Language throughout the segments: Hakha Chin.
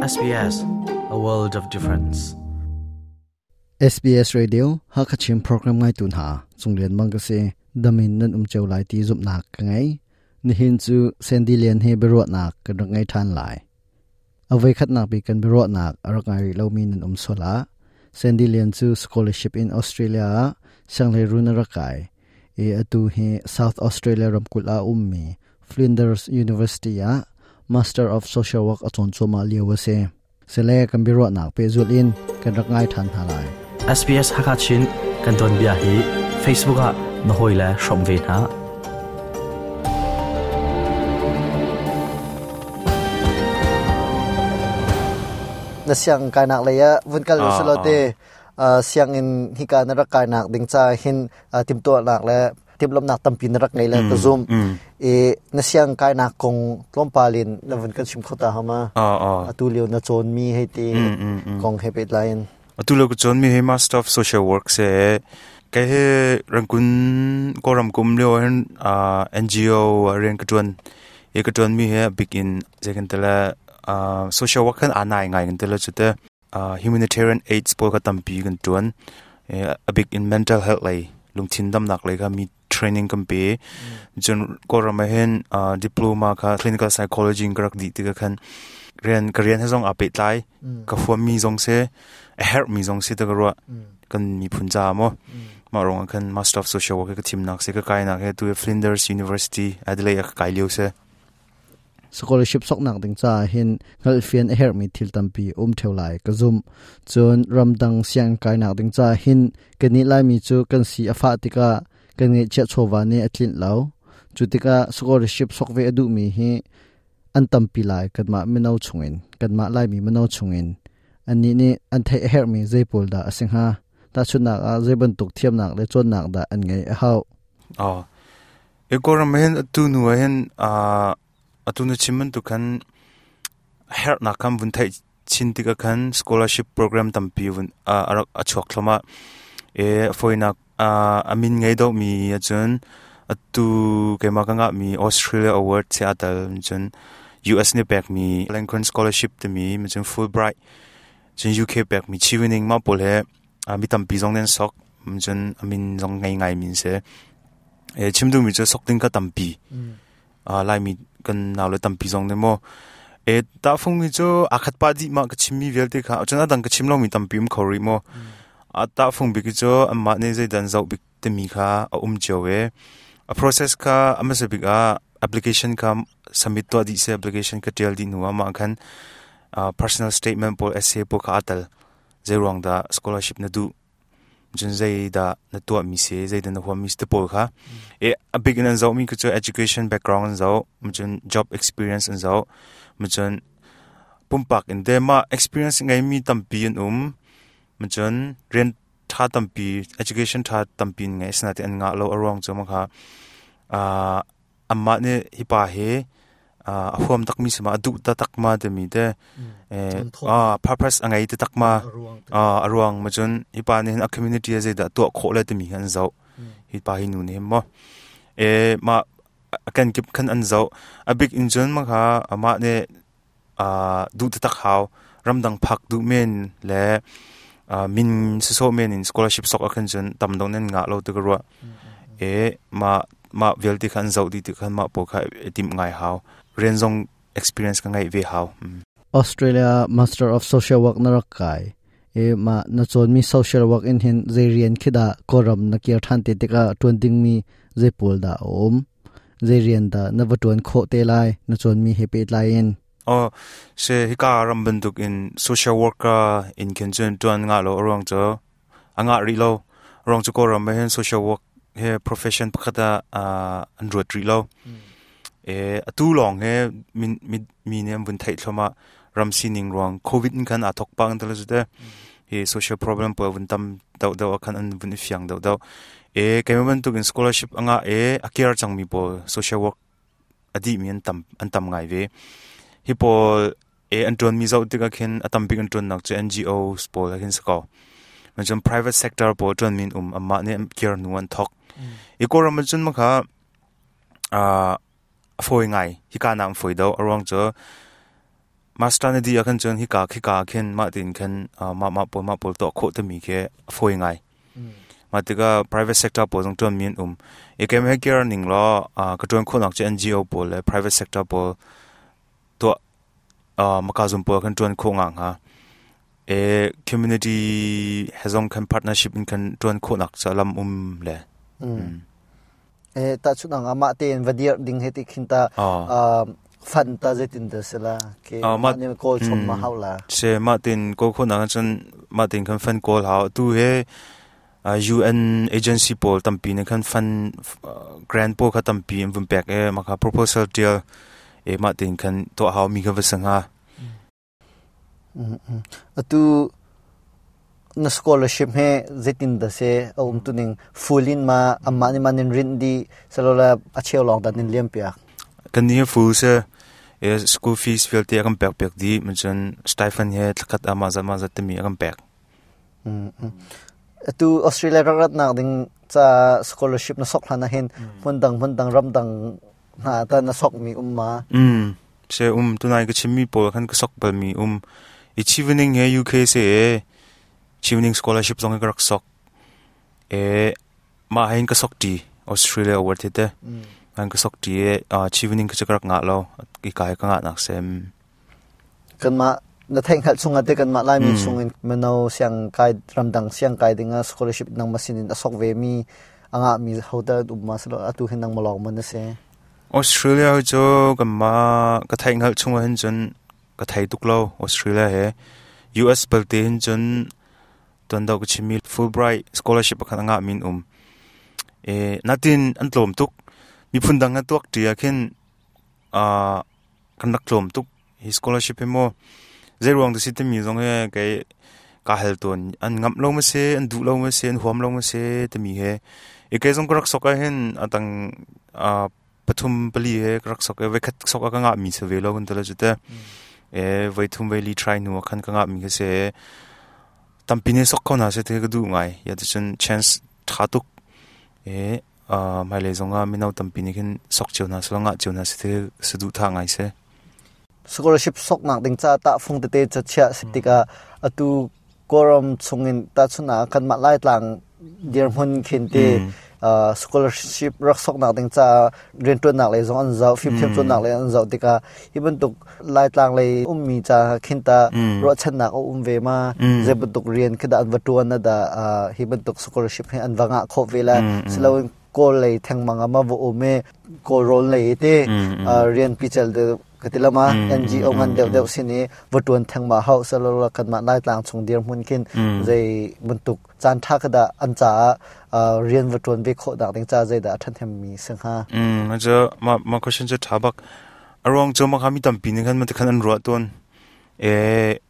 SBS, a world of difference. SBS Radio Hakachin program ngai tu hna Cunglian Mang ka si damin nan um cheu lai ti zumnak ka ngei nihin cu Sandy Lian he biaruahnak kan rak ngei than lai avoi khatnak bi kan biaruahnak a rak ngai rih lomi nan um sola Sandy Lian cu scholarship in Australia ah sianghleirun a rak kai i atu hi South Australia ramkulh ah ummi Flinders University ah Master of Social Work a cawn cuahmah lio a si. Sile kan biaruahnak pehzulh in kan rak ngai ṭhan hna lai. SBS Hakachin kan tuanbia hi Facebook ah na hawile hrawm ve hna. Na siang kainak lei ah vun kal usilo te sianginn hika na rak kainak ding ca hin timtuahnak le timhlamhnak tampi na rak ngei le ka zum i na siang kainak kong tlawmpal in na vun kan chim kho ta hama atu lio na cawn mi hei ti kong he pehtlai in atu lio ka cawn mi hi Master of Social Work se ke he rangkun koram kum lio hin NGO rian ka tuan i ka tuan mi he big in zekan tala social work kan anai ngai kan tala chute humanitarian aids pawl kha tampi kan tuan a big in mental health lei lungthin damnak lei kha mi training kan pe cun kawlram ah hin diploma kha clinical psychology in ka rak dih tikah khan rian ka rian he zong aa pehtlai ka huam mi zong si a herh mi zong si ta ka ruah kan miphun ca maw mah ruangah khan master of social work ka thimnak si ka kainak he tu Flinders University Adelaide ah ka kai lio si. Scholarship soknak ding caah hin hngalhfian a herhmi thil tampi um theo lai ka zumh. Cun ramdang sianginn kainak ding caah hin kannih Laimi cu kan si a fah tikah kan ngeihchiah chawva nih a tlinh lo. Cu tikah scholarship sok ve a duhmi hi an tampi lai kanmah mino chungin, kanmah Laimi mino chungin. Annih nih an theih a herhmi zei pawl dah a si hnga? Tahchunhnak ah zei bantuk thiamnak le cawnnak dah an ngeih a hauh? Oh. E Kawlram ah hin atu hnu ah hin atu na chim bantuk khan herhnak khan vun theih chin tikah khan scholarship program tampi vun a rak a chuak thluahmah. E fawinak a min ngei deuhmi ahcun atu keimah ka ngahmi Australia Award si aa tel cun US nih pekmi Lincoln Scholarship timi cun Fulbright cun UK pekmi Chevening mah pawl he mi tampi zong nih an sok cun a min zong ngei ngai mi an si. E chim duhmi cu sok ding ka tampi. Laimi kan naule tampi zong nih maw e tahfung mi cu aa khat pah dih mah ka chimmi vialte kha cun a dang ka chim lomi tampi um kho rih maw. A tahfung bik cu anmah nih zeidah an zoh bik timi kha a um cio e. A process kha a hmasa bik ah application kha submit tuah dih si application ka tial dih hnu ah mah khan personal statement pawl essay pawl kha aa tel. Zeiruang dah scholarship na duh cun zeidah na tuahmi si zeidah na huammi si te pawl kha e a bik in an zohmi cu education background an zoh cun job experience an zoh cun pumpak in te mah experience ngeimi tampi an um cun rian tha tampi education tha tampi in ngei asinain an ngah lo a ruang cu ma kha Amah nih hi pa hi a huam takmi si ma a duh taktak ma timi te purpose a ngei taktak ma a ruang ma cun hi pa nih hin a community ah zeidah tuah khawh le timi hi an zoh hi pa hi nu nih hin maw e mah a kenkip khan an zoh a bik in cun ma kha amah nih duh taktak hau ramdang phak duh men le min sisawh men in scholarship sok ah khan cun tam deuh nan ngah lo ti ka ruah e mah mah vialte kha an zoh dih ti khan mah pawl kha i timh ngai hau rian zong experience ka ngeih ve hau. Australia Master of Social Work na rak kai e ma na cawnmi social work in hin zei rian khi dah Kawlram na kir ṭhan te tikah ṭuan dingmi zei pawl dah a um zei rian dah na va ṭuan khawh te lai na cawnmi he pehtlai in? Oh, se hika ram bantuk in social worker in khin cun ṭuan ngah lo a ruang cu a ngah rih lo. A ruang cu Kawlram ah hin social work he profession pakhat ah an ruat rih lo. E atu lawng he mi nih an vun theih thluahmah ram sining ruang COVID in khan aa thok pah kan ti te. Hi social problem pawl vun tam deuh deuh ah khan an vun i fiang deuh deuh. E keimah bantuk in scholarship a ngah e a care cangmi pawl social work a dihmi an tam an tam ngai ve. Hi pawl e an ṭuanmi zoh tikah khin a tambik an ṭuannak cu NGOs pawl ah khin si ko. Cun private sector pawl ṭuanmi an um amah nih an kir hnu an thok. I Kawlram ah cun makha a fawi ngai. Hika nak an fawi deuh. A ruang cu Master na dih ahkhan cun hika khika ah khin mah tiin khan mah mah pawl mah pawl tuah khawh timi khi a fawi ngai. Mah tikah private sector pawl zong ṭuanmi an um. I keimah he kir ning law ka ṭuan khawhnak cu NGO pawl le private sector pawl tuah maka zum pawl khan ṭuan khawh nga hnga. E community he zong khan partnership in khan ṭuan khawhnak cu lam um le. E tahchunh ang amah tein va dir ding he ti khin ta fan ta zeitin dah si la ke mah nih kawl chom ma hau la. Se mah tin kawl khawh nak cun mah tin khan fan kawl hau tu he UN agency pawl tampi nih khan fan grant pawl kha tampi an vun pek e mah kha proposal tial e mah tin khan tuah hau mi kha va si hnga. Atu na scholarship he zeitin dah si a um tuning full in ma amah nih ma nin rinh dih salola a cheu lawng dah nin liam piak? Kan nih full si e school fees vialte a kan pek piak dih cun stipend he thlakhat ah mah zat mah zat timi a kan pek. Atu Australia rak ratnak ding ca scholarship na sok hlan ah hin hmun dang hmun dang ram dang hna ta na sok mi um ma? Se um tunai ka chimmi pawl khan ka sok balmi um i Chevening he UK se e Chevening scholarship zong ka rak sok e mah hein ka sok ti Australia award te te an ka sok ti e Chevening ka ka rak ngah lo i kai ka ngah nak sem. Kanmah na theih hngalh chungah te kanmah Laimi chungin mino siang kai ramdang siang kai dingah scholarship nangmah sinin a sok ve mi a ngah mi hotel um ma silo atu hin nangmah lawng man na si? Australia cu kanmah ka theih hngalh chungah hin cun ka thei tuk lo Australia he. US balte hin cun tuan deuh ka chimmi Fulbright scholarship pakhat a ngah min um. E natin an tlawm tuk. Miphun dang he tuak ṭi ah khin kan rak tlawm tuk. Hi scholarship hi maw zei ruang dah si timi zong hi kei ka hal tawn. An ngamh lo ma si, an duh lo ma si, an huam lo ma si timi he. I kei zong ka rak sok ah hin atang pathum pali he ka rak sok i voikhat sok ah ka ngah mi si ve lo kan ti lo cu te. E voi thum voi li try hnu ah khan ka ngah mi kha si. Tampi nih sok kho hna seh ti ka duh ngai. Ya ticun chance ṭha tuk. E hmailei zongah mino tampi nih khin sok cio hna seh ngah cio hna seh ti saduhthah ngai si. Scholarship soknak ding ca tahfung tete cu chiah si tikah atu Kawlram chungin tahchun ah kanmah Laitlang dirhmun khin ti scholarship rak soknak ding caah rianṭuannak lei zong an zoh, fimthiam cawnnak lei an zoh tikah hi bantuk Laitlang lei ummi ca khin ta ruahchannak a um ve ma? Zei bantuk rian khi dah an va ṭuan na dah hi bantuk scholarship hi an va ngah khawh ve la? Siloin Kawl lei thengmang ah ma va um i Kawl rawl lei te rian pical deuh ka ti lama NGO ngan deuh deuh sin i va ṭuan thengmah hau salola kanmah Laitlang chung dirhmun khin zei bantuk caan ṭha kha dah an caah rian va ṭuan ve khawh nak ding ca zeidah a ṭhahnem mi si hnga? Cu ma ma question cu ṭha bak. A ruang cu ma kha mi tampi nih khan ma khan an ruah tawn. E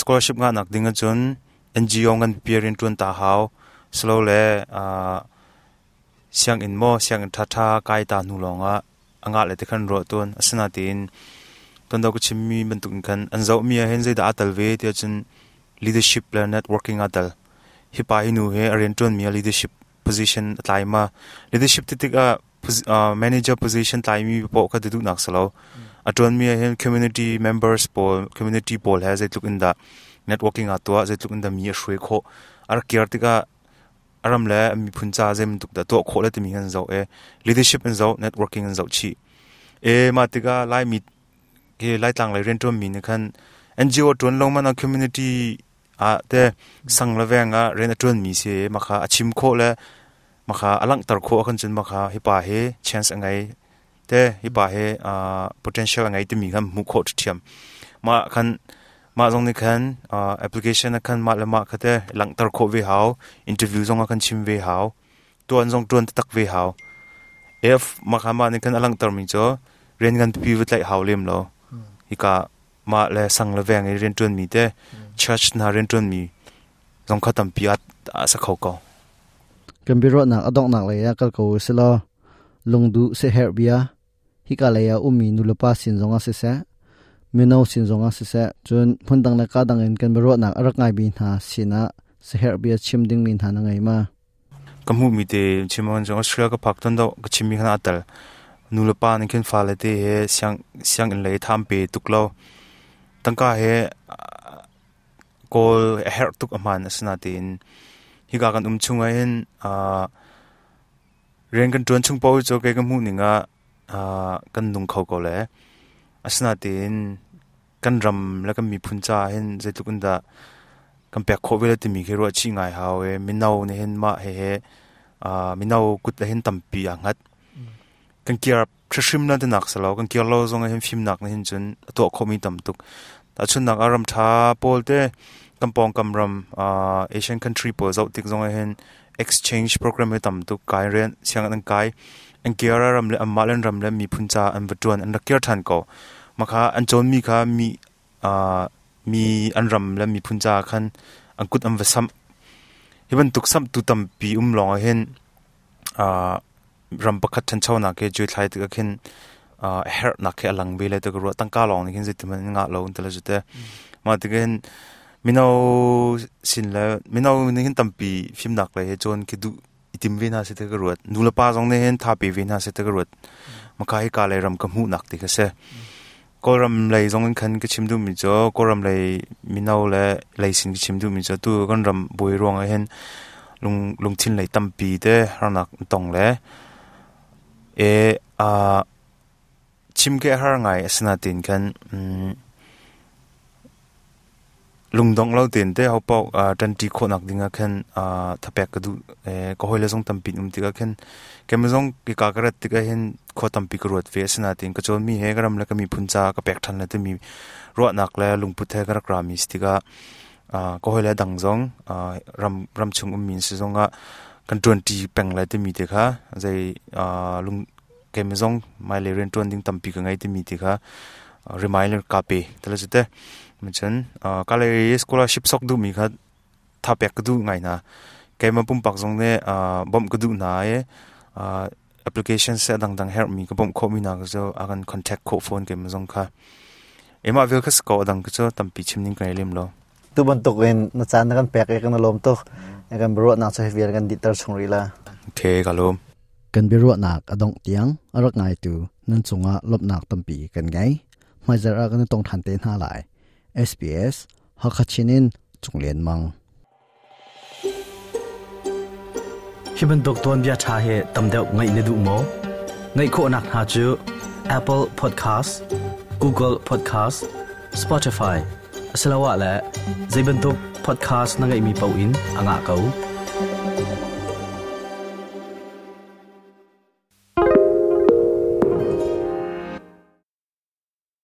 scholarship ngah nak ding ahcun NGO ngan pipi rian ṭuan ta hau. Silo le sianginn maw sianginn ṭhaṭha kai ta hnu lawngah a ngah le ti khan ruah tawn. Asinain tuan deuh ka chimmi bantuk in khan an zohmi ah hin zeidah aa tel ve ti ahcun leadership le networking aa tel. Hi pa hi nu hi a rianṭuanmi ah leadership position a tlai ma? Leadership ti tikah manager position tlaimi paoh kha ti duhnak si lo. A ṭuanmi ah hin community members pawl, community pawl he zeitluk in dah networking aa tuah, zeitluk in dah mi a hruai khawh. A rak kir tikah a ram le a miphun ca zeibantuk dah tuah khawh le timi an zoh i leadership an zoh, networking an zoh chih. E mah tikah Laimi hi Laitlang lei rianṭuanmi nih khan NGO ṭuan lo man ah community ah te sang le veng ah rian a ṭuanmi si mah kha a chim khawh le mah kha a langhter khawh ahkhan cun mah kha hi pa hi chance a ngei te hi pa hi potential a ngei timi khan hmuh khawh ṭhiam. Mah khan mah zong nih khan application ah khan mah le mah kha te langhter khawh ve hau, interview zong ah khan chim ve hau, tuan zong tuan taktak ve hau. If mah kha mah nih khan a langhtermi cu rian ngan pipi va tlaih hau lem lo. Hika mah le sang le veng i rian ṭuanmi te church hna rian ṭuanmi zong kha tampi a sa kho ko. Kan biaruahnak a donghnak lei ah kal ko u silaw lungduh siaherh bia hika lei ah ummi nulepa sin zongah siseh, mino sin zongah siseh, cun hmundang le ka dang in kan biaruahnak a rak ngaimi hna sinah siaherh bia chim dingmi hna na ngei ma? Ka hmuhmi te chim ahcun Australia ka phak ton deuh ka chimmi khan aa tel. Nulepa nih khin fale te he siang sianginn lei tham pe tuk lo. Tangka he kawl a herh tuk a hmaan asinain hika kan um chung ahhin rian kan ṭuan chung paoh cu kei ka hmuh ning ah kan nung kho ko le asinain kan ram le kan miphun caah hin zeitluk in dah kan pek khawh ve le timi khi ruah chih ngai hau i mino nih hin mah hehe mino kut ah hin tampi aa hngat. Kan kir hrimhrim na tinak si lo, kan kir lo zong ah hin fimnak nih hin cun a tuah khawhmi tam tuk. Tahchunhnak ah ram ṭha pawl te kan pawngkam ram Asian country pawl zoh tik zong ah hin exchange program hi tam tuk kai rian sianginn an kai an kir ah ram le anmah le an ram le miphun ca an va ṭuan an rak kir ṭhan ko. Mah kha an cawnmi kha mi mi an ram le miphun caah khan an kut an va samh. Hi bantuk samhtu tampi um lawng ah hin ram pakhat ṭhanchonak hi cuai thlai tikah khin a herhnak khi a lang ve lai ti ka ruah. Tangka lawng nih khin zeiti hmanh in ngah lo an ti lo cu teh. Mah tikah hin mino sin le mino nih hin tampi fimnak lei he cawn khi duh i tim ve hna seh ti ka ruat. Nu le pa zong nih hin tha pe ve hna seh ti ka ruat. Maka hika lei ram ka hmuhnak ti kha si. Kawlram lei zong in khan ka chim duhmi cu Kawlram lei mino le lei sin ka chim duhmi cu tu kan ram buai ruang ah hin lung lungthin lei tampi te harnak tong le e a chim ke har ngai asinain khan lungdongh lo tein te hopaoh ṭanṭi khawhnak ding ah khan thapek ka duh. Ka hawile zong tampi an um tikah khin keimah zong hika ka rat tikah hin khua tampi ka ruat ve. Asinain ka cawnmi he ka ram le ka miphun caah ka pek ṭhan lai timi ruahnak le lungput he ka rak rami si tikah ka hawile dang zong ram ramchung ummi an si zongah kan ṭuanṭi peng lai timi te kha zei lung keimah zong hmailei rianṭuan ding tampi ka ngei timi ti kha reminder ka pe tala cu te. Cun ka lei scholarship sok duhmi kha tha pek ka duh ngai hna. Keimah pumpak zong nih bawmh ka duh hna i application seh dangdang herhmi ka bawmh khawhmi hna cu a kan contact khawh fawn keimah zong kha. Emah vial kha si ko a dang cu tampi chim ning ka ngei lem lo. Tu bantuk in na caan na kan pek i kan lawm tuk. Kan biaruahnak cu hi vial kan dihter chung rih la. Okay, ka lawm. Kan biaruahnak a dongh tiang a rak ngaitu nan cungah lawmhnak tampi kan ngei. Hmaizarh ah kan i tong ṭhan te hna lai. SBS Hakha Chin in Cung Lian Mang. Hi bantuk tuanbia ṭha hi tam deuh ngaih na duh maw? Ngaih khawhnak hna cu Apple Podcast, Google Podcast, Spotify asiloah le zei bantuk podcast na ngeihmi paoh in a ngah ko.